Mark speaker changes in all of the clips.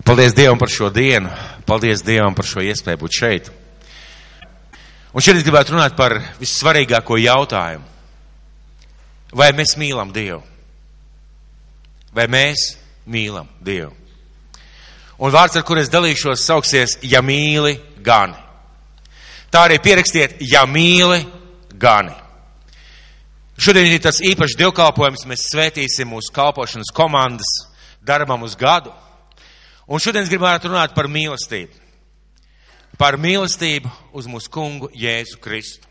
Speaker 1: Paldies Dievam par šo dienu. Paldies Dievam par šo iespēju būt šeit. Un šeit es gribētu runāt par vissvarīgāko jautājumu. Vai mēs mīlam Dievu? Vai mēs mīlam Dievu? Un vārds, ar kur es dalīšos, sauksies, ja mīli, gani. Tā arī pierakstiet, ja mīli, gani. Šodien ir tas īpašs dievkalpojums, mēs svētīsim mūsu kalpošanas komandas darbam uz gadu. Un šodien es gribētu runāt par mīlestību. Par mīlestību uz mūsu kungu Jēzu Kristu.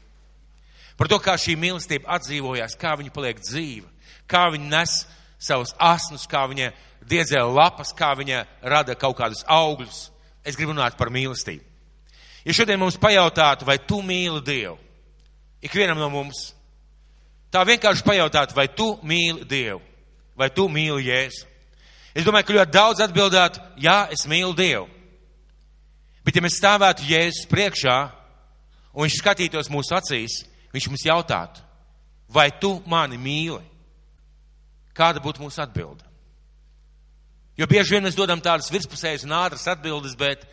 Speaker 1: Par to, kā šī mīlestība atdzīvojās, kā viņa paliek dzīva, kā viņa nes savus asnus, kā viņa diedzē lapas, kā viņa rada kaut kādus augļus. Es gribu runāt par mīlestību. Ja šodien mums pajautātu, vai tu mīli Dievu, ikvienam no mums, tā vienkārši pajautātu, vai tu mīli Dievu, vai tu mīli Jēzu. Es domāju, ka ļoti daudz atbildētu, jā, es mīlu Dievu. Bet ja mēs stāvētu Jēzus priekšā, un viņš skatītos mūsu acīs, viņš mums jautātu, vai tu mani mīli? Kāda būtu mūsu atbilde? Jo bieži vien mēs dodam tādas virspusējas un ātras atbildes, bet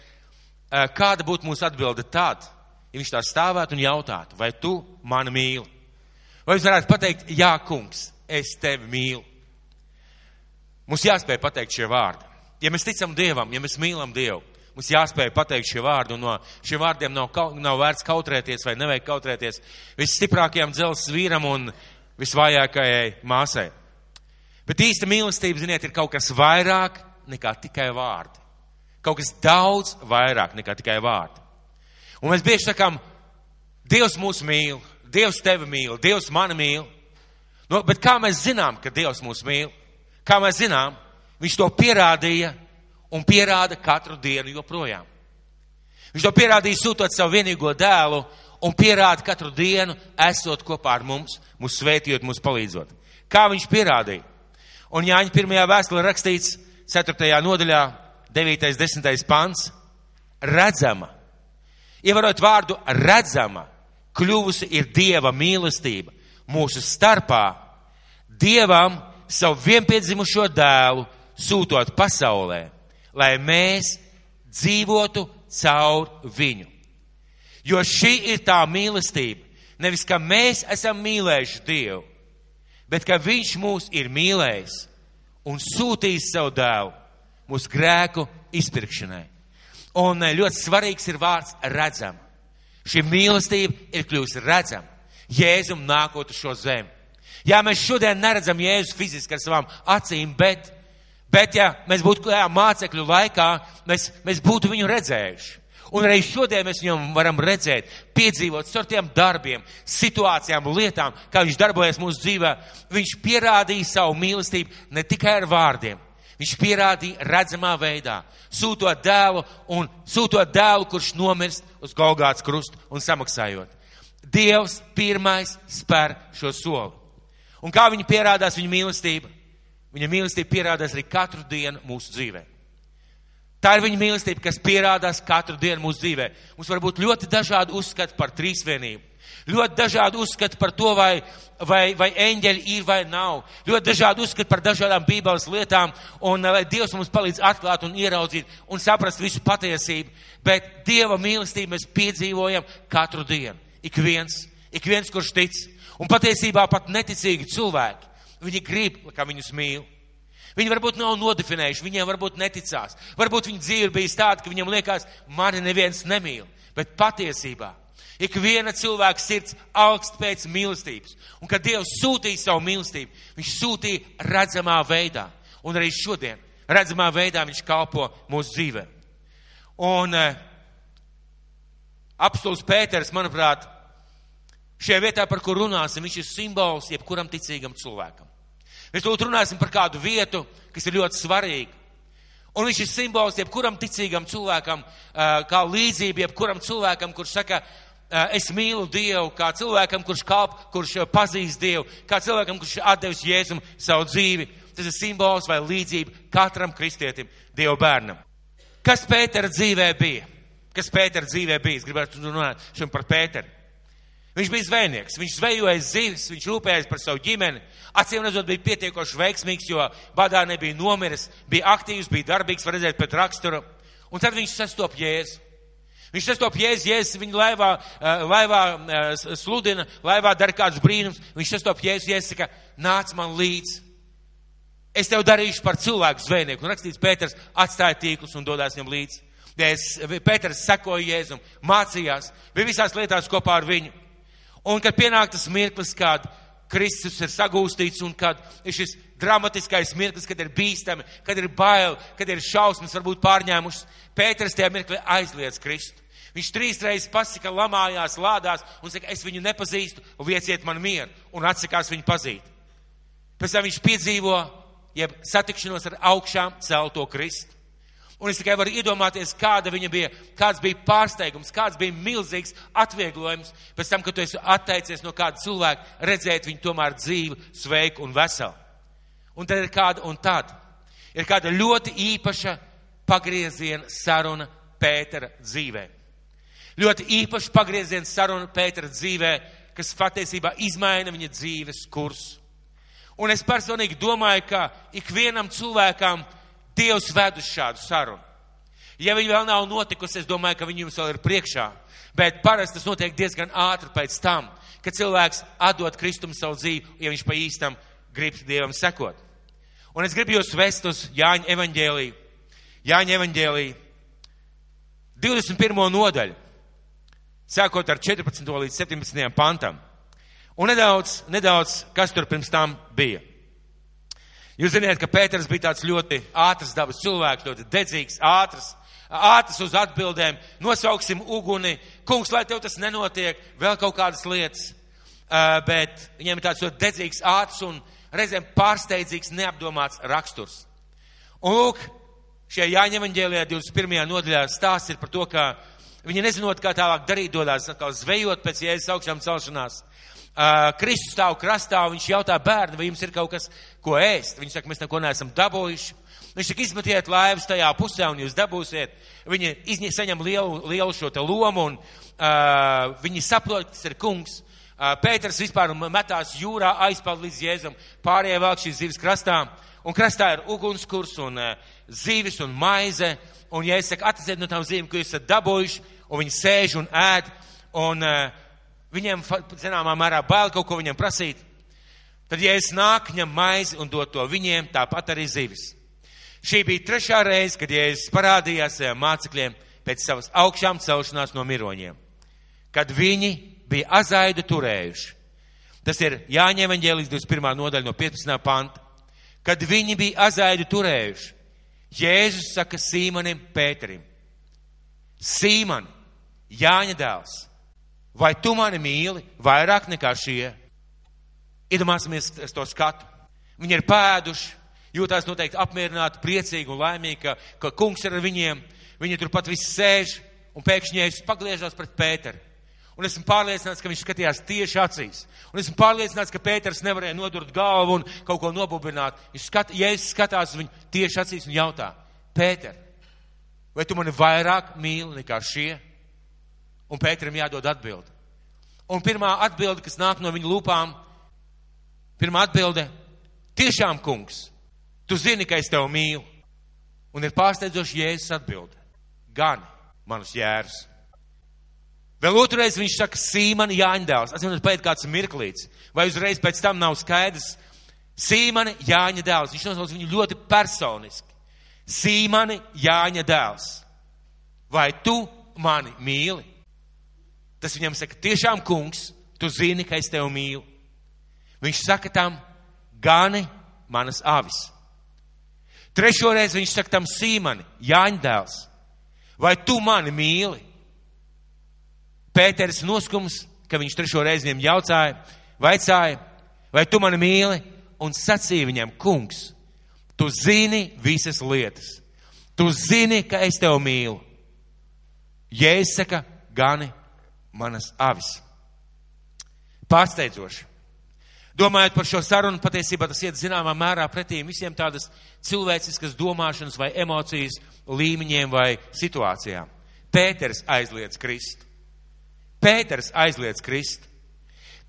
Speaker 1: kāda būtu mūsu atbilde tad, ja viņš tā stāvētu un jautātu, vai tu mani mīli? Vai jūs varētu pateikt, jā, kungs, es tevi mīlu? Mums jāspēj pateikt šie vārdi. Ja mēs ticam Dievam, ja mēs mīlam Dievu, mums jāspēj pateikt šie vārdi, un no šiem vārdiem nav vērts kautrēties vai nevajag kautrēties visstiprākajam dzelzs vīram un visvājākajai māsai. Bet īsta mīlestība, ziniet, ir kaut kas vairāk nekā tikai vārdi. Kaut kas daudz vairāk nekā tikai vārdi. Un mēs bieži sakām, Dievs mūs mīl, Dievs tevi mīl, Dievs mani mīl. Bet kā mēs zinām, ka Dievs mūs mīl? Kā mēs zinām, viņš to pierādīja un pierāda katru dienu joprojām. Viņš to pierādīja sūtot savu vienīgo dēlu un pierāda katru dienu, esot kopā ar mums, mūs svētījot, mūs palīdzot. Kā viņš pierādīja? Un Jāņa 1. vēstulē rakstīts 4. nodaļā, 9. 10. pants, redzama. Ievarot vārdu redzama, kļuvusi ir Dieva mīlestība mūsu starpā. Dievam savu vienpiedzimušo dēlu sūtot pasaulē, lai mēs dzīvotu caur viņu. Jo šī ir tā mīlestība, nevis ka mēs esam mīlējuši Dievu, bet ka viņš mūs ir mīlējis un sūtījis savu dēlu mūsu grēku izpirkšanai. Un ļoti svarīgs ir vārds redzama. Šī mīlestība ir kļuvusi redzama Jēzum nākot uz šo zemi. Jā, mēs šodien neredzam Jēzus fiziski ar savām acīm, bet ja mēs būtu mācekļu laikā, mēs būtu viņu redzējuši. Un arī šodien mēs viņam varam redzēt, piedzīvot ar tiem darbiem, situācijām, lietām, kā viņš darbojas mūsu dzīvē. Viņš pierādīja savu mīlestību ne tikai ar vārdiem. Viņš pierādīja redzamā veidā, sūtot dēlu, kurš nomirst uz Golgātas krustu un samaksājot. Dievs pirmais spēr šo soli. Un kā viņa pierādās viņa mīlestība? Viņa mīlestība pierādās arī katru dienu mūsu dzīvē. Tā ir viņa mīlestība, kas pierādās katru dienu mūsu dzīvē. Mums var būt ļoti dažādi uzskati par trīsvienību. Ļoti dažādi uzskati par to, vai eņģeļi ir vai nav. Ļoti dažādi uzskati par dažādām Bībeles lietām. Un lai Dievs mums palīdz atklāt un ieraudzīt un saprast visu patiesību. Bet Dieva mīlestību mēs piedzīvojam katru dienu. Ik viens, kurš tic. Un patiesībā pat neticīgi cilvēki, viņi grib, kā viņus mīl. Viņi varbūt nav nodefinējuši, viņiem varbūt neticās. Varbūt viņa dzīve ir bijis tāda, ka viņam liekas, mani neviens nemīl. Bet patiesībā, ik viena cilvēka sirds augst pēc mīlestības. Un kad Dievs sūtīja savu mīlestību, viņš sūtīja redzamā veidā. Un arī šodien redzamā veidā viņš kalpo mūsu dzīvē. Un apostols Pēters, manuprāt, šajā vietā, par kur runāsim, viņš ir simbols jebkuram ticīgam cilvēkam. Mēs lūdzu runāsim par kādu vietu, kas ir ļoti svarīga. Un viņš ir simbols jebkuram ticīgam cilvēkam, kā līdzība jebkuram cilvēkam, kurš saka, es mīlu Dievu, kā cilvēkam, kurš pazīst Dievu, kā cilvēkam, kurš atdevis Jēzum savu dzīvi. Tas ir simbols vai līdzība katram kristietim, Dieva bērnam. Kas Pētera dzīvē bija? Es gribētu runāt šodien par Pēteru. Viņš bija zvejnieks, viņš zvejoja zivis, viņš rūpējās par savu ģimeni. Acīm redzot, bija pietiekoši veiksmīgs, jo badā nebija nomiris, bija aktīvs, bija darbīgs, var redzēt pēc rakstura. Un tad viņš sastop Jēzu. Viņš sastop Jēzus viņu laivā sludina, laivā dara kādus brīnums. Viņš sastop Jēzus saka, nāc man līdz. Es tev darīšu par cilvēku zvejnieku. Un rakstīts, Pēters atstāja tīklus un dodās viņam līdz. Pēters sekoja Jēzum, mācījās, bija visās lietās kopā ar viņu. Un kad pienāk tas mirklis, kad Kristus ir sagūstīts un kad ir šis dramatiskais mirklis, kad ir bīstami, kad ir bail, kad ir šausmas varbūt pārņēmušas, Pēters tajā mirklī aizliedz Kristu. Viņš 3 reizes pasaka, lamājās, lādās un saka, es viņu nepazīstu, lieciet man mieru, un atsakās viņu pazīt. Pēc tam viņš piedzīvo, jeb satikšanos ar augšām celto Kristu. Un es tikai varu iedomāties, kāds bija pārsteigums, kāds bija milzīgs atvieglojums pēc tam, kad tu esi atteicies no kāda cilvēka, redzēt viņu tomēr dzīvu, sveiku un veselu. Un tad ir kāda ļoti īpaša pagrieziena saruna Pētera dzīvē. Ļoti īpaša pagrieziena saruna Pētera dzīvē, kas patiesībā izmaina viņa dzīves kursu. Un es personīgi domāju, ka ikvienam cilvēkam Dievs ved uz šādu sarunu. Ja viņi vēl nav notikusi, es domāju, ka viņi jums vēl ir priekšā. Bet parasti tas notiek diezgan ātri pēc tam, kad cilvēks atdod Kristum savu dzīvi, ja viņš pa īstam grib Dievam sekot. Un es gribu jūs vest uz Jāņa evaņģēliju. Jāņa evaņģēliju 21. nodaļu, sākot ar 14. līdz 17. pantam. Un nedaudz, kas tur pirms tam bija. Jūs zināt, ka Pēters bija tāds ļoti ātrs dabas cilvēks, ļoti dedzīgs, ātrs uz atbildēm, nosauksim uguni, kungs, lai tev tas nenotiek, vēl kaut kādas lietas, bet viņiem ir tāds ļoti dedzīgs, ātrs un reizēm pārsteidzīgs, neapdomāts raksturs. Un lūk, šajā Jāņa evaņģēlijā 21. nodaļā stāsts ir par to, ka viņi nezinot, kā tālāk darīt, dodās atkal zvejot pēc Jēzus augšām celšanās. Kristus stāv krastā, un viņš jautā bērni, vai jums ir kaut kas, ko ēst. Viņi saka, mēs neko neesam dabūjuši. Viņš saka, izmetiet laivas tajā pusē, un jūs dabūsiet. Viņi saņem lielu šo te lomu, un viņi saprot, tas ir kungs. Pēters vispār metās jūrā, aizpeld līdz Jēzum, pārējie velk šīs zivis krastā, un krastā ir ugunskurs, un zivis, un maize, un ja es saku, atrasiet no tām zivīm, ko jūs esat dabūjuši, un viņi sēž un ēd, un viņiem, zināmā mērā, bail kaut ko viņiem prasīt. Tad, ja es nāk, ņem maizi un dod to viņiem, tāpat arī zivis. Šī bija 3. reize, kad Jēzus parādījās saviem mācekļiem pēc savas augšām celšanās no miroņiem. Kad viņi bija azaidu turējuši. Tas ir Jāņa evaņģēlijas 21. nodaļa no 15. panta. Kad viņi bija azaidu turējuši, Jēzus saka Sīmanim Pēterim: Sīmani, Jāņa dēls, vai tu mani mīli vairāk nekā šie? Iedomāsimies to skatu. Viņi ir pēduši, jūtās noteikti apmierināti, priecīgi un laimīgi, ka kungs ir ar viņiem. Viņi turpat visi sēž un pēkšņi Jēzus pagriežas pret Pēteri. Un esmu pārliecināts, ka viņš skatījās tieši acīs. Un esmu pārliecināts, ka Pēters nevarēja nodurt galvu un kaut ko nobubināt. Jēzus skatās uz viņu tieši acīs un jautā: Pēter, vai tu mani vairāk mīli nekā šie? Un Pēterim jādod atbildi. Un pirmā atbilde, kas nāk no viņa lūpām, pirmā atbilde: tiešām, kungs, tu zini, ka es tev mīlu. Un ir pārsteidzoši Jēzus atbilde: gan manus jērus. Vēl otrreiz viņš saka: Sīmani, Jāņa dēls. Atsimot, paiet kāds mirklīts. Vai uzreiz pēc tam nav skaidrs? Sīmani, Jāņa dēls. Viņš nosauc viņu ļoti personiski. Sīmani, Jāņa dēls. Vai tu mani mīli? Tas viņam saka: tiešām, kungs, tu zini, ka es tev mīlu. Viņš saka tam: gani manas avis. 3. reizi viņš saka tam: Sīmani, Jāņa dēls, vai tu mani mīli? Pēteris noskums, ka viņš 3. reizi viņam vaicāja: vai tu mani mīli? Un sacīja viņam: kungs, tu zini visas lietas. Tu zini, ka es tev mīlu. Jēzus saka: gani manas avis. Pārsteidzoši. Domājot par šo sarunu, patiesībā tas iet zināmā mērā pretī visiem tādas cilvēciskas domāšanas vai emocijas līmeņiem vai situācijām. Pēters aizliedz Kristu. Pēters aizliedz Kristu.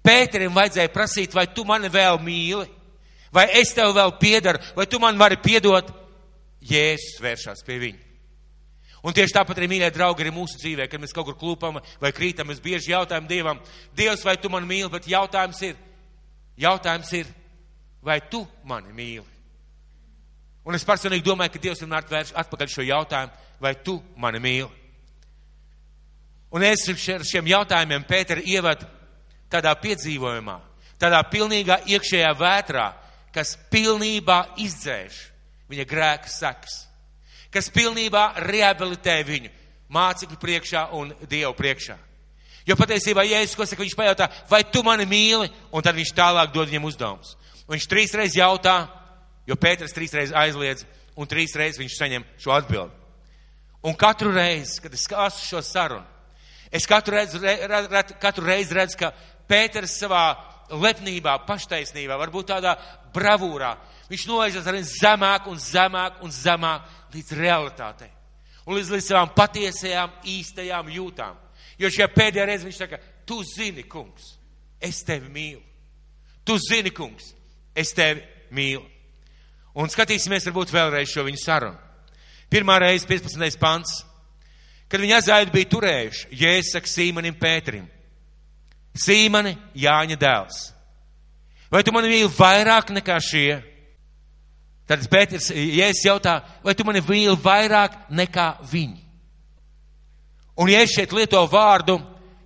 Speaker 1: Pēterim vajadzēja prasīt, vai tu mani vēl mīli, vai es tev vēl piedaru, vai tu man vari piedot. Jēzus vēršās pie viņa. Un tieši tāpat arī, mīļie draugi, arī mūsu dzīvē, kad mēs kaut kur klūpam vai krītam, mēs bieži jautājam Dievam, Dievs, vai tu mani mīli, bet jautājums ir, vai tu mani mīli? Un es personīgi domāju, ka Dievs vienmēr vērš atpakaļ šo jautājumu, vai tu mani mīli? Un es ar šiem jautājumiem Pēteru ievedu tādā piedzīvojumā, tādā pilnīgā iekšējā vētrā, kas pilnībā izdzēš viņa grēka sekas, kas pilnībā rehabilitē viņu mācekļu priekšā un Dievu priekšā. Jo patiesībā Jēzus, ko saka, viņš pajautā, vai tu mani mīli, un tad viņš tālāk dod viņam uzdevumus. Un viņš 3 reizes jautā, jo Pēters 3 reizes aizliedz, un 3 reizes viņš saņem šo atbildi. Un katru reizi, kad es klasu šo sarunu, es katru reizi redzu, ka Pēters savā lepnībā, paštaisnībā, varbūt tādā bravūrā, viņš noežas arvien zemāk un zemāk un zemāk līdz realitātei. Un līdz savām patiesajām, īstajām jūtām. Jo šajā pēdējā reize viņš saka, tu zini, kungs, es tevi mīlu. Tu zini, kungs, es tevi mīlu. Un skatīsimies varbūt vēlreiz šo viņu sarunu. Pirmā reize, 15. pants, kad viņi aizaidu bija turējuši, Jēzus saka Sīmanim Pēterim, Sīmani, Jāņa dēls, vai tu mani mīli vairāk nekā šie? Tad Pēters, Jēzus jautā, vai tu mani mīli vairāk nekā viņi? Un Jēzus šeit lieto vārdu,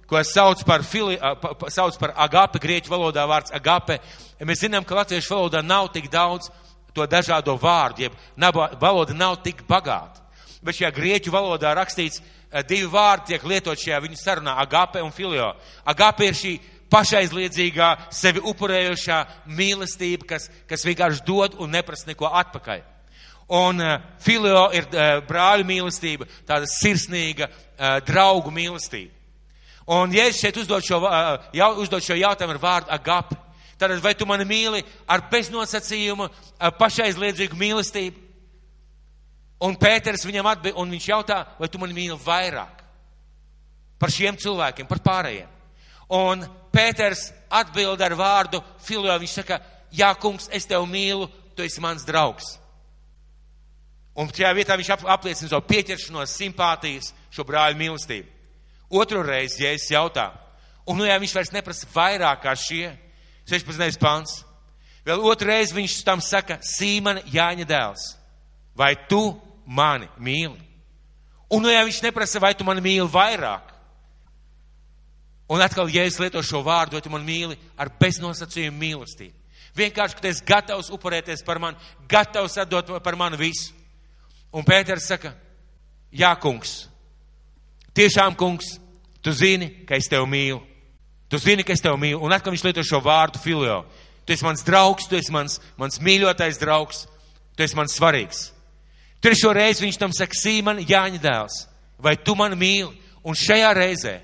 Speaker 1: ko sauc par agape, grieķu valodā vārds agape. Mēs zinām, ka latviešu valodā nav tik daudz to dažādo vārdu, jeb valoda nav tik bagāta. Bet šajā grieķu valodā rakstīts 2 vārdi tiek lietot šajā viņu sarunā, agape un filio. Agape ir šī pašaizliedzīgā, sevi upurējošā mīlestība, kas vienkārši dod un neprasa neko atpakaļ. Un filio ir brāļu mīlestība, tāda sirsnīga draugu mīlestība. Un Jēzus šeit uzdod šo jautājumu ar vārdu agape. Tātad, vai tu mani mīli ar beznosacījumu, pašaizliedzīgu mīlestību? Un Pēters viņam atbild, un viņš jautā, vai tu mani mīli vairāk par šiem cilvēkiem, par pārējiem. Un Pēters atbild ar vārdu filio, viņš saka, jā, kungs, es tevi mīlu, tu esi mans draugs. Un šajā vietā viņš apliecina savu pieķeršanos, simpātijas, šo brāļu mīlestību. Otru reizi Jēzus jautā, un jā, viņš vairs neprasa vairāk kā šie, 16. pants. Vēl otru reizi viņš tam saka, Sīmani, Jāņa dēls, vai tu mani mīli? Un jā, viņš neprasa, vai tu mani mīli vairāk. Un atkal Jēzus lieto šo vārdu, vai tu mani mīli ar beznosacījumu mīlestību. Vienkārši, ka tu esi gatavs upurēties par mani, gatavs atdot par mani visu. Un Pēters saka, jā, kungs, tiešām, kungs, tu zini, ka es tevi mīlu. Tu zini, ka es tevi mīlu. Un atkal viņš lieto šo vārdu filio. Tu esi mans draugs, tu esi mans mīļotais draugs, tu esi mans svarīgs. Trešo reizi viņš tam saka, Sīmani, Jāņa dēls, vai tu mani mīli? Un šajā reizē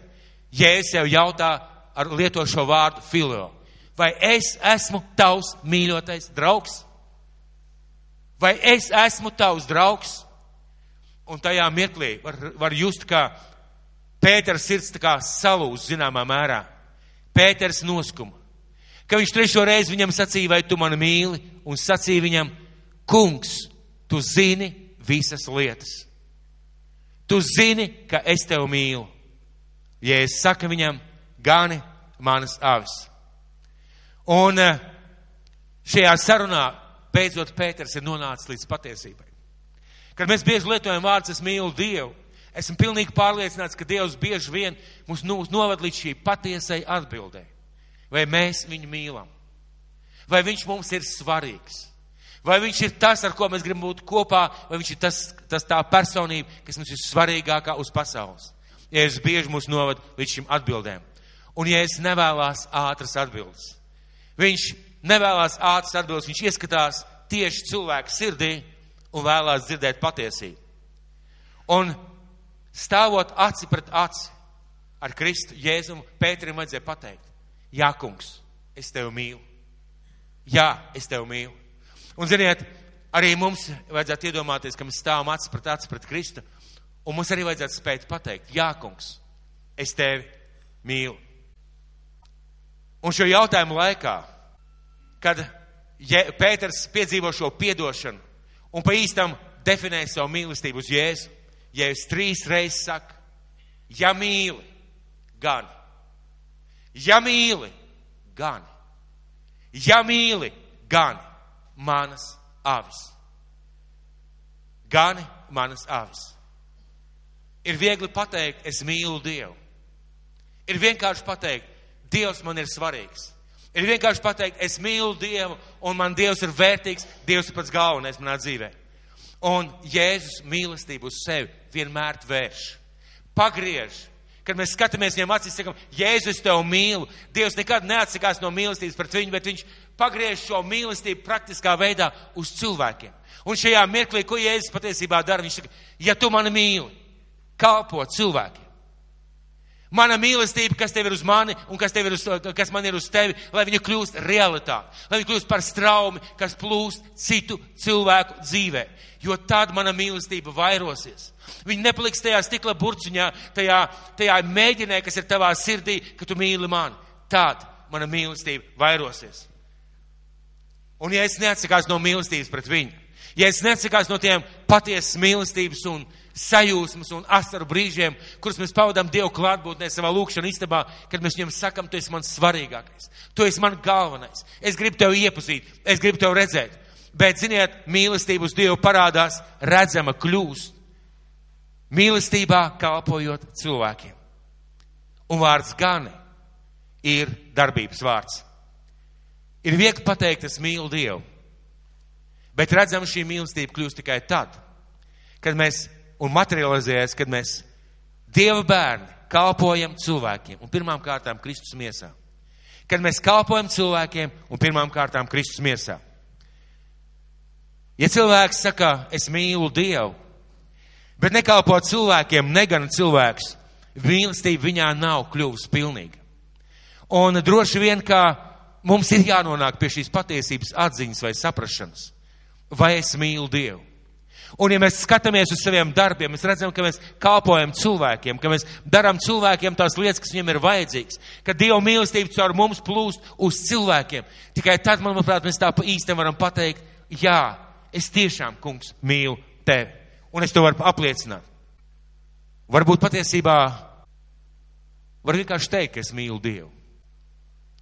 Speaker 1: Jēzus jau jautā ar lieto šo vārdu filio. Vai es esmu tavs mīļotais draugs? Vai es esmu tavs draugs? Un tajā mirklī var just, kā Pētera sirds tā kā salūz zināmā mērā. Pēters noskuma. Ka viņš trešo reizi viņam sacīja, vai tu mani mīli? Un sacīja viņam, kungs, tu zini visas lietas. Tu zini, ka es tevi mīlu. Jēzus saka viņam, gani manas avis. Un šajā sarunā beidzot Pēters ir nonācis līdz patiesībai. Kad mēs bieži lietojam vārdus, es mīlu Dievu, esmu pilnīgi pārliecināts, ka Dievs bieži vien mūs novad līdz šī patiesai atbildē. Vai mēs viņu mīlam? Vai viņš mums ir svarīgs? Vai viņš ir tas, ar ko mēs gribam būt kopā, vai viņš ir tas tā personība, kas mums ir svarīgākā uz pasaules? Jēzus bieži mūs novad līdz šīm atbildēm. Un Jēzus nevēlās ātras atbildes. Viņš nevēlās ātras atbildes, viņš ieskatās tieši cilvēku sirdī un vēlās dzirdēt patiesību. Un stāvot aci pret aci ar Kristu, Jēzumu, Pēterim vajadzēja pateikt, jā, kungs, es tevi mīlu. Jā, es tevi mīlu. Un ziniet, arī mums vajadzētu iedomāties, ka mēs stāvam aci pret Kristu, un mums arī vajadzētu spēt pateikt, jā, kungs, es tevi mīlu. Un šo jautājumu laikā, kad Pēters piedzīvo šo piedošanu un pa īstam definē savu mīlestību uz Jēzu, Jēzus 3 reizes saka, ja mīli, gan. Ja mīli, gan. Ja mīli, gan manas avis. Gani manas avis. Ir viegli pateikt, es mīlu Dievu. Ir vienkārši pateikt, Dievs man ir svarīgs. Ir vienkārši pateikt, es mīlu Dievu un man Dievs ir vērtīgs, Dievs ir pats galvenais manā dzīvē. Un Jēzus mīlestību uz sevi vienmēr vērš. Pagriež. Kad mēs skatāmies viņam acīs, sakam, Jēzus, es tev mīlu. Dievs nekad neatsakās no mīlestības pret viņu, bet viņš pagriež šo mīlestību praktiskā veidā uz cilvēkiem. Un šajā mirklī, ko Jēzus patiesībā dara, viņš saka, ja tu mani mīli, kalpo cilvēkiem. Mana mīlestība, kas tev ir uz mani un kas man ir uz tevi, lai viņa kļūst realitāte, lai viņa kļūst par straumi, kas plūst citu cilvēku dzīvē. Jo tad mana mīlestība vairosies. Viņa nepaliks tajā stikla burciņā, tajā mēģinē, kas ir tavā sirdī, ka tu mīli mani. Tad mana mīlestība vairosies. Un ja es neatsakās no mīlestības pret viņu, ja es neatsakās no tiem patiesas mīlestības un sajūsmas un asaru brīžiem, kurus mēs pavadām Dievu klātbūtnē savā lūkšana istabā, kad mēs viņam sakam, tu esi mans svarīgākais, tu esi man galvenais, es gribu tev iepazīt, es gribu tev redzēt. Bet, ziniet, mīlestība uz Dievu parādās, redzama kļūst. Mīlestībā kalpojot cilvēkiem. Un vārds gani ir darbības vārds. Ir viegli pateikt, es mīlu Dievu. Bet redzam, šī mīlestība kļūst tikai tad, kad mēs, un materializējas, kad mēs Dieva bērni kalpojam cilvēkiem un pirmām kārtām Kristus miesā. Kad mēs kalpojam cilvēkiem un pirmām kārtām Kristus miesā. Ja cilvēks saka, es mīlu Dievu, bet nekalpo cilvēkiem, negana cilvēks, mīlestība viņā nav kļuvusi pilnīga. Un droši vien, ka mums ir jānonāk pie šīs patiesības atziņas vai saprašanas. Vai es mīlu Dievu? Un ja mēs skatāmies uz saviem darbiem, mēs redzam, ka mēs kalpojam cilvēkiem, ka mēs darām cilvēkiem tās lietas, kas viņiem ir vajadzīgas, ka Dieva mīlestība caur mums plūst uz cilvēkiem. Tikai tad, manuprāt, mēs tā pa īstam varam pateikt, jā, es tiešām, kungs, mīlu tevi. Un es to varu apliecināt. Varbūt patiesībā var vienkārši teikt, ka es mīlu Dievu.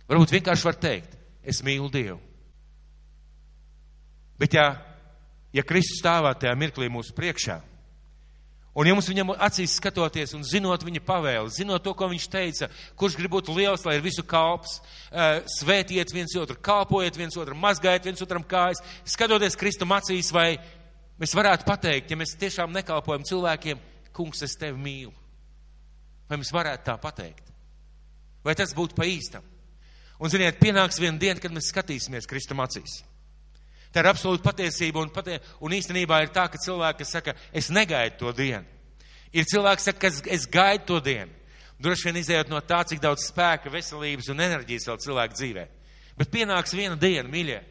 Speaker 1: Varbūt vienkārši var teikt, es mīlu Dievu. Bet ja Kristus stāvā tajā mirklī mūsu priekšā, un ja mums viņam acīs skatoties un zinot viņa pavēli, zinot to, ko viņš teica, kurš grib būt liels, lai ir visu kalps, svētiet viens otru, kalpojiet viens otru, mazgājiet viens otram kājas, skatoties Kristum acīs, vai mēs varētu pateikt, ja mēs tiešām nekalpojam cilvēkiem, kungs, es tevi mīlu. Vai mēs varētu tā pateikt? Vai tas būtu pa īstam? Un, ziniet, pienāks viena diena, kad mēs skatīsimies Kristum acīs. Tā ir absolūta patiesība, un īstenībā ir tā, ka cilvēki, kas saka, es negaidu to dienu. Ir cilvēki, kas saka, ka es gaidu to dienu. Droši vien izējot no tā, cik daudz spēka, veselības un enerģijas vēl cilvēku dzīvē. Bet pienāks viena diena, mīļie,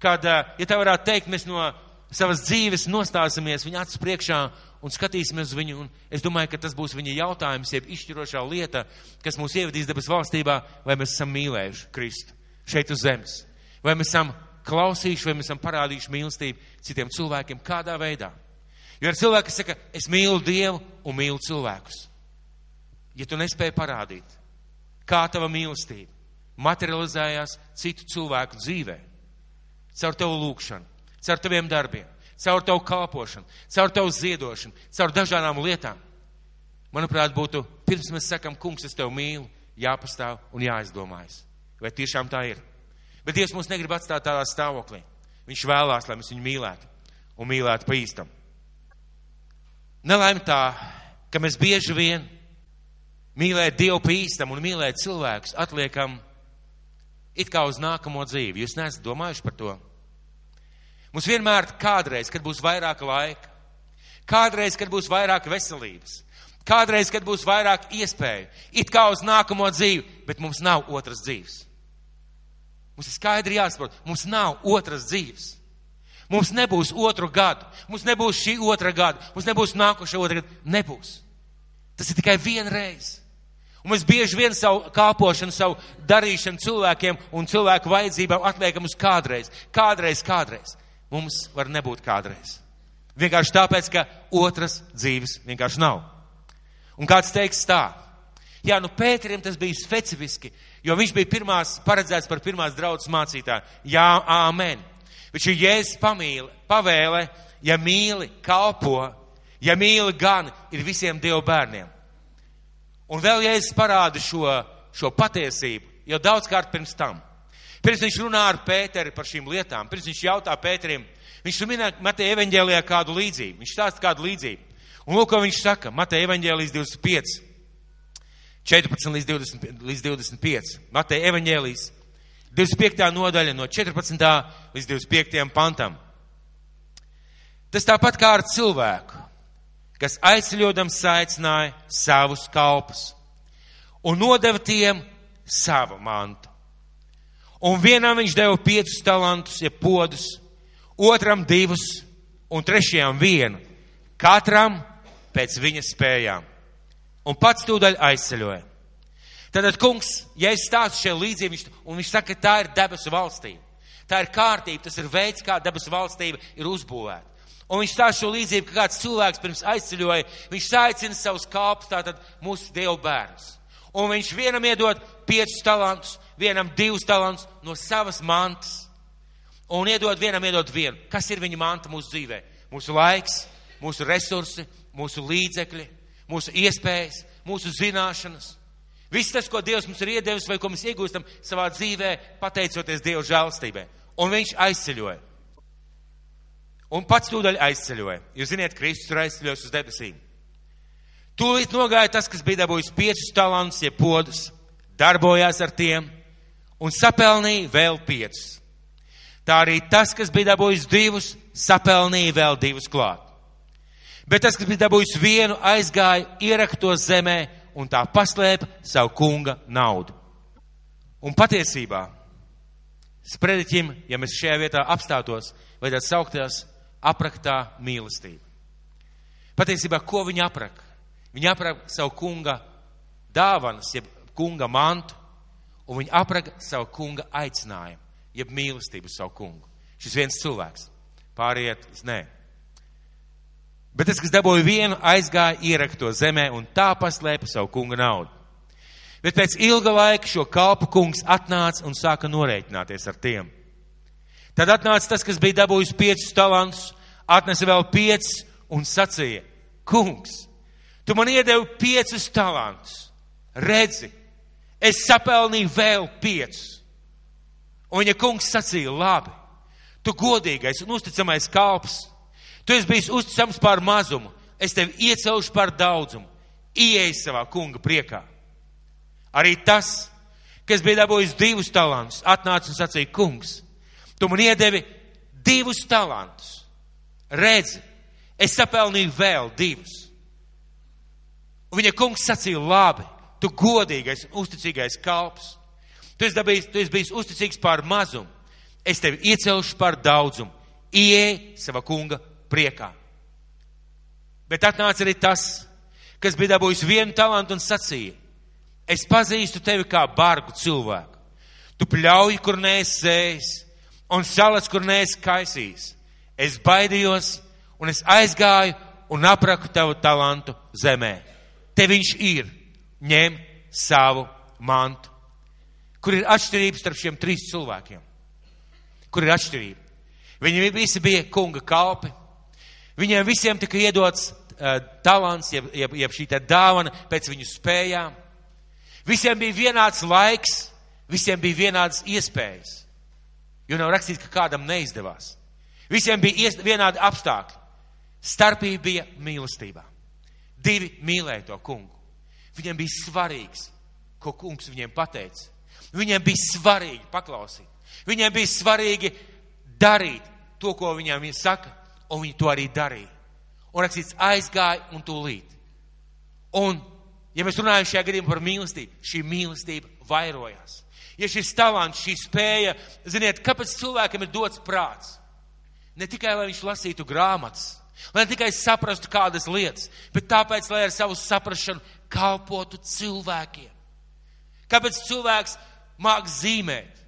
Speaker 1: kad, ja tā varētu teikt, mēs no savas dzīves nostāsimies viņa acis priekšā un skatīsimies uz viņu, un es domāju, ka tas būs viņa jautājums, jeb izšķirošā lieta, kas mūs ievedīs debes valstībā, vai mēs esam mīlējuši Kristu šeit uz zemes, vai mēs esam klausījuši, vai mēs esam parādījuši mīlestību citiem cilvēkiem kādā veidā. Jo ir cilvēki, kas saka, es mīlu Dievu un mīlu cilvēkus. Ja tu nespēji parādīt, kā tava mīlestība materializējās citu cilvēku dzīvē, caur tavu lūkšanu, caur taviem darbiem, caur tavu kalpošanu, caur tavu ziedošanu, caur dažādām lietām, manuprāt, būtu, pirms mēs sakam, kungs, es tevi mīlu, jāpastāv un jāizdomājas. Vai tiešām tā ir? Bet Dievs mūs negrib atstāt tādā stāvoklī. Viņš vēlās, lai mēs viņu mīlētu un mīlētu pa īstam. Nelaime tā, ka mēs bieži vien mīlēt Dievu pa īstam un mīlēt cilvēkus atliekam it kā uz nākamo dzīvi. Jūs neesat domājuši par to? Mums vienmēr kādreiz, kad būs vairāk laika, kādreiz, kad būs vairāk veselības, kādreiz, kad būs vairāk iespēju, it kā uz nākamo dzīvi, bet mums nav otras dzīves. Mums ir skaidri jāsaprot, mums nav otras dzīves. Mums nebūs otru gadu, mums nebūs šī otra gada, mums nebūs nākošā otra gada. Nebūs. Tas ir tikai viena reize. Un mēs bieži vien savu kalpošanu, savu darīšanu cilvēkiem un cilvēku vajadzībām atliekam uz kādreiz. Kādreiz. Mums var nebūt kādreiz. Vienkārši tāpēc, ka otras dzīves vienkārši nav. Un kāds teiks tā. Jā, Pēterim tas bija specifiski, jo viņš bija paredzēts par pirmās draudzes mācītāju. Jā, āmen. Bet šī Jēzus pavēle, ja mīli, kalpo, ja mīli gan, ir visiem Dieva bērniem. Un vēl Jēzus parāda šo patiesību, jau daudzkārt pirms tam. Pirms viņš runā ar Pēteri par šīm lietām, pirms viņš jautā Pēterim, viņš minē Mateja evaņģēlijā kādu līdzību, viņš stāsta kādu līdzību. Un lūk, ko viņš saka, Mateja evaņģēlijas 25, 14 līdz 25, Mateja evaņģēlijas 25. nodaļa no 14. līdz 25. pantam. Tas tāpat kā ar cilvēku, kas aizceļodams aicināja savus kalpus un nodeva tiem savu mantu. Un vienam viņš deva 5 talantus, jeb podus, otram 2 un trešajam 1, katram pēc viņa spējām. Un pats tūdaļ aizceļoja. Tātad, kungs, ja es stāstu šajā līdzību, un viņš saka, ka tā ir debesu valstība. Tā ir kārtība, tas ir veids, kā debesu valstība ir uzbūvēta. Un viņš stāsta šo līdzību, ka kāds cilvēks pirms aizceļoja, viņš saicina savus kalpus, tātad mūsu Dievu bērnus. Un viņš vienam iedod 5 talantus, vienam 2 talantus no savas mantas. Un vienam iedod 1. Kas ir viņa manta mūsu dzīvē? Mūsu laiks, mūsu resursi, mūsu līdzekļi, mūsu iespējas, mūsu zināšanas. Viss tas, ko Dievs mums ir iedevis vai ko mēs iegūstam savā dzīvē, pateicoties Dieva žēlastībai. Un viņš aizceļoja. Un pats tūdaļ aizceļoja. Jūs ziniet, Kristus ir aizceļojis uz debesīm. Tūlīt nogāja tas, kas bija dabūjis 5 talantus, jeb podus, darbojās ar tiem un sapelnīja vēl 5. Tā arī tas, kas bija dabūjis 2, sapelnīja vēl 2 klāt. Bet tas, kas bija dabūjis 1, aizgāja, ieraka to zemē un tā paslēpa savu kunga naudu. Un patiesībā, sprediķim, ja mēs šajā vietā apstātos, vajadzētu saukties apraktā mīlestība. Patiesībā, ko viņa apraka? Viņa apraka savu kunga dāvanas, jeb kunga mantu, un viņa apraka savu kunga aicinājumu, jeb mīlestību savu kungu. Šis viens cilvēks. Pāriet, nē. Bet tas, kas dabūja 1, aizgāja, ieraka to zemē un tā paslēpa savu kunga naudu. Bet pēc ilga laika šo kalpu kungs atnāca un sāka norēķināties ar tiem. Tad atnāca tas, kas bija dabūjis 5 talantus, atnesa vēl 5 un sacīja, kungs, tu man iedevi 5 talantus. Redzi, es sapelnīju vēl 5. Un viņa kungs sacīja, labi, tu godīgais un uzticamais kalps, tu esi bijis uzticams par mazumu, es tevi iecelšu par daudzumu, ieej savā kunga priekā. Arī tas, kas bija dabūjis 2 talantus, atnāca un sacīja, kungs, tu man iedevi 2 talantus. Redzi, es sapelnīju vēl 2. Un viņa kungs sacīja, labi, tu godīgais un uzticīgais kalps. Tu esi bijis uzticīgs par mazumu. Es tevi iecelšu par daudzumu. Ieej sava kunga priekā. Bet atnāca arī tas, kas bija dabūjis 1 talantu un sacīja, es pazīstu tevi kā bargu cilvēku. Tu pļauj, kur neesi sējis, un salas, kur neesi kaisījis. Es baidījos, un es aizgāju un apraku tavu talantu zemē. Te viņš ir, ņem savu mantu. Kur ir atšķirības starp šiem 3 cilvēkiem? Kur ir atšķirība? Viņi visi bija kunga kalpi. Viņiem visiem tika iedots talants, jeb šī tā dāvana pēc viņu spējām. Visiem bija vienāds laiks, visiem bija vienādas iespējas. Jo nav rakstīts, ka kādam neizdevās. Visiem bija vienādi apstākļi. Starpība bija mīlestībā. 2 mīlēja to kungu. Viņiem bija svarīgs, ko kungs viņiem pateica. Viņiem bija svarīgi paklausīt. Viņiem bija svarīgi darīt to, ko viņiem saka, un viņi to arī darīja. Un rakstīts, aizgāja un tūlīt. Un, ja mēs runājam šajā gadījumā par mīlestību, šī mīlestība vairojās. Ja šis talants, šī spēja, ziniet, kāpēc cilvēkam ir dots prāts? Ne tikai, lai viņš lasītu grāmatas, lai ne tikai saprastu kādas lietas, bet tāpēc, lai ar savu saprašanu kalpotu cilvēkiem. Kāpēc cilvēks māk zīmēt?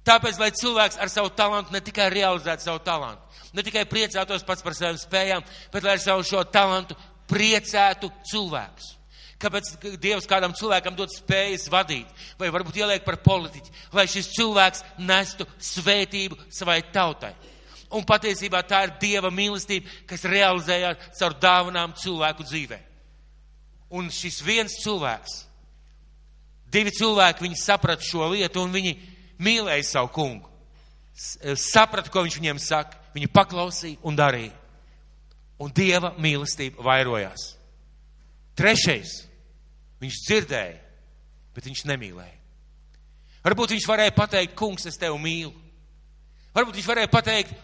Speaker 1: Tāpēc, lai cilvēks ar savu talantu ne tikai realizētu savu talantu, ne tikai priecātos pats par savām spējām, bet lai ar savu šo talantu priecētu cilvēkus. Kāpēc Dievs kādam cilvēkam dod spējas vadīt, vai varbūt ieliek par politiķi, lai šis cilvēks nestu svētību savai tautai. Un patiesībā tā ir Dieva mīlestība, kas realizējās caur dāvanām cilvēku dzīvē. Un šis viens cilvēks, 2 cilvēki, viņi saprata šo lietu un viņi mīlēja savu kungu. Saprata, ko viņš viņiem saka, viņi paklausīja un darīja. Un Dieva mīlestība vairojās. 3. Viņš dzirdēja, bet viņš nemīlēja. Varbūt viņš varēja pateikt, kungs, es tevi mīlu. Varbūt viņš varēja pateikt,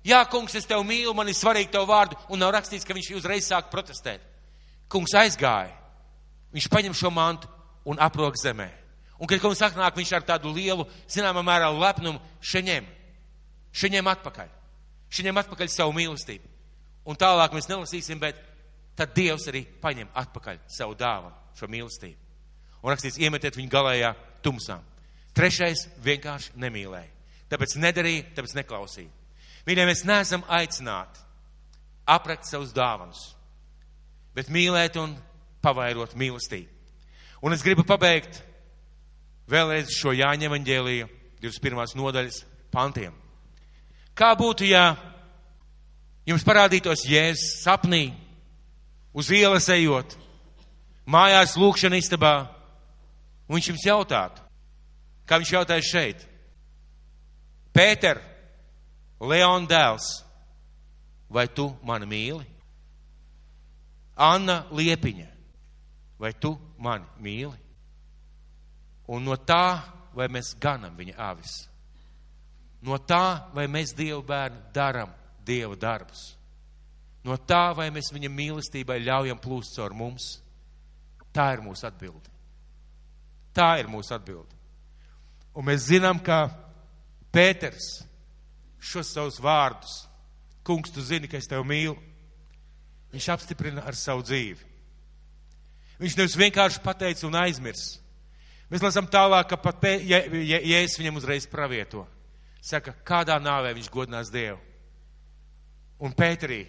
Speaker 1: jā, kungs, es tevi mīlu, man ir svarīgi tev vārdu, un nav rakstīts, ka viņš uzreiz sāk protestēt. Kungs aizgāja, viņš paņem šo mantu un aprok zemē. Un, kad kungs atnāk, viņš ar tādu lielu, zināmā mērā lepnumu šeņem atpakaļ savu mīlestību. Un tālāk mēs nelasīsim, bet tad Dievs arī paņem atpakaļ savu dāvanu, šo mīlestību. Un rakstīts, iemetiet viņu galējā tumsām. 3. vienkārši nemīlēja. Tāpēc nedarīja, tāpēc neklausīja. Mīļie, mēs neesam aicināti aprakt savus dāvanus, bet mīlēt un pavairot mīlestību. Un es gribu pabeigt vēlreiz šo Jāņa evaņģēlija 21. nodaļas pantiem. Kā būtu, ja jums parādītos Jēzus sapnī, uz ielas ejot, mājās lūkšana istabā, un viņš jums jautātu, kā viņš jautāja šeit: Pēter, Leona dēls, vai tu mani mīli? Anna Liepiņa, vai tu mani mīli? Un no tā, vai mēs ganam viņa avis. No tā, vai mēs Dievu bērni daram Dieva darbus. No tā, vai mēs viņa mīlestībai ļaujam plūst caur mums. Tā ir mūsu atbilde. Tā ir mūsu atbilde. Un mēs zinām, ka Pēters šos savus vārdus, kungs, tu zini, ka es tevi mīlu, viņš apstiprina ar savu dzīvi. Viņš nevis vienkārši pateica un aizmirs. Mēs lasām tālāk, ka pat Jēzus viņam uzreiz pravieto. Saka, kādā nāvē viņš godinās Dievu. Un Pēterī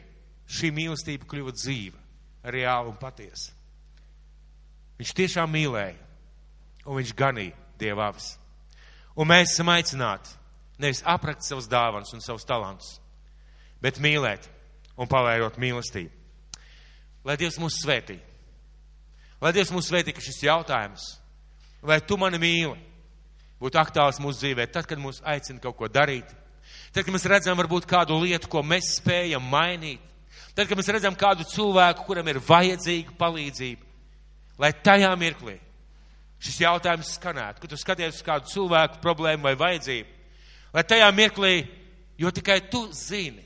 Speaker 1: šī mīlestība kļuva dzīva, reāla un patiesa. Viņš tiešām mīlēja, un viņš ganīja Dieva avis. Un mēs esam aicināti nevis aprakt savus dāvanas un savus talantus, bet mīlēt un pavairot mīlestību. Lai Dievs mūs svētī. Lai Dievs mūs svētī, ka šis jautājums, vai tu mani mīli, būtu aktuāls mūsu dzīvē, tad, kad mūs aicina kaut ko darīt, tad, kad mēs redzam varbūt kādu lietu, ko mēs spējam mainīt, tad, kad mēs redzam kādu cilvēku, kuram ir vajadzīga palīdzība, lai tajā mirklī šis jautājums skanētu, kad tu skaties uz kādu cilvēku problēmu vai vajadzību, lai tajā mirklī, jo tikai tu zini,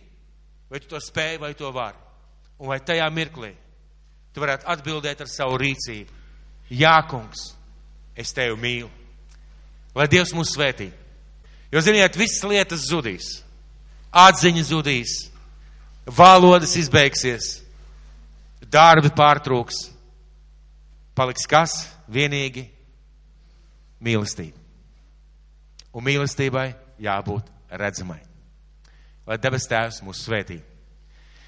Speaker 1: vai tu to spēj, vai to vari, un lai tajā mirklī tu varētu atbildēt ar savu rīcību. Jā, kungs, es tevi mīlu. Lai Dievs mūs svētī. Jo, ziniet, visas lietas zudīs. Atziņa zudīs. Valodas izbeigsies. Darbi pārtrūks. Paliks kas? Vienīgi mīlestība. Un mīlestībai jābūt redzamai. Lai debes Tēvs mūs svētī.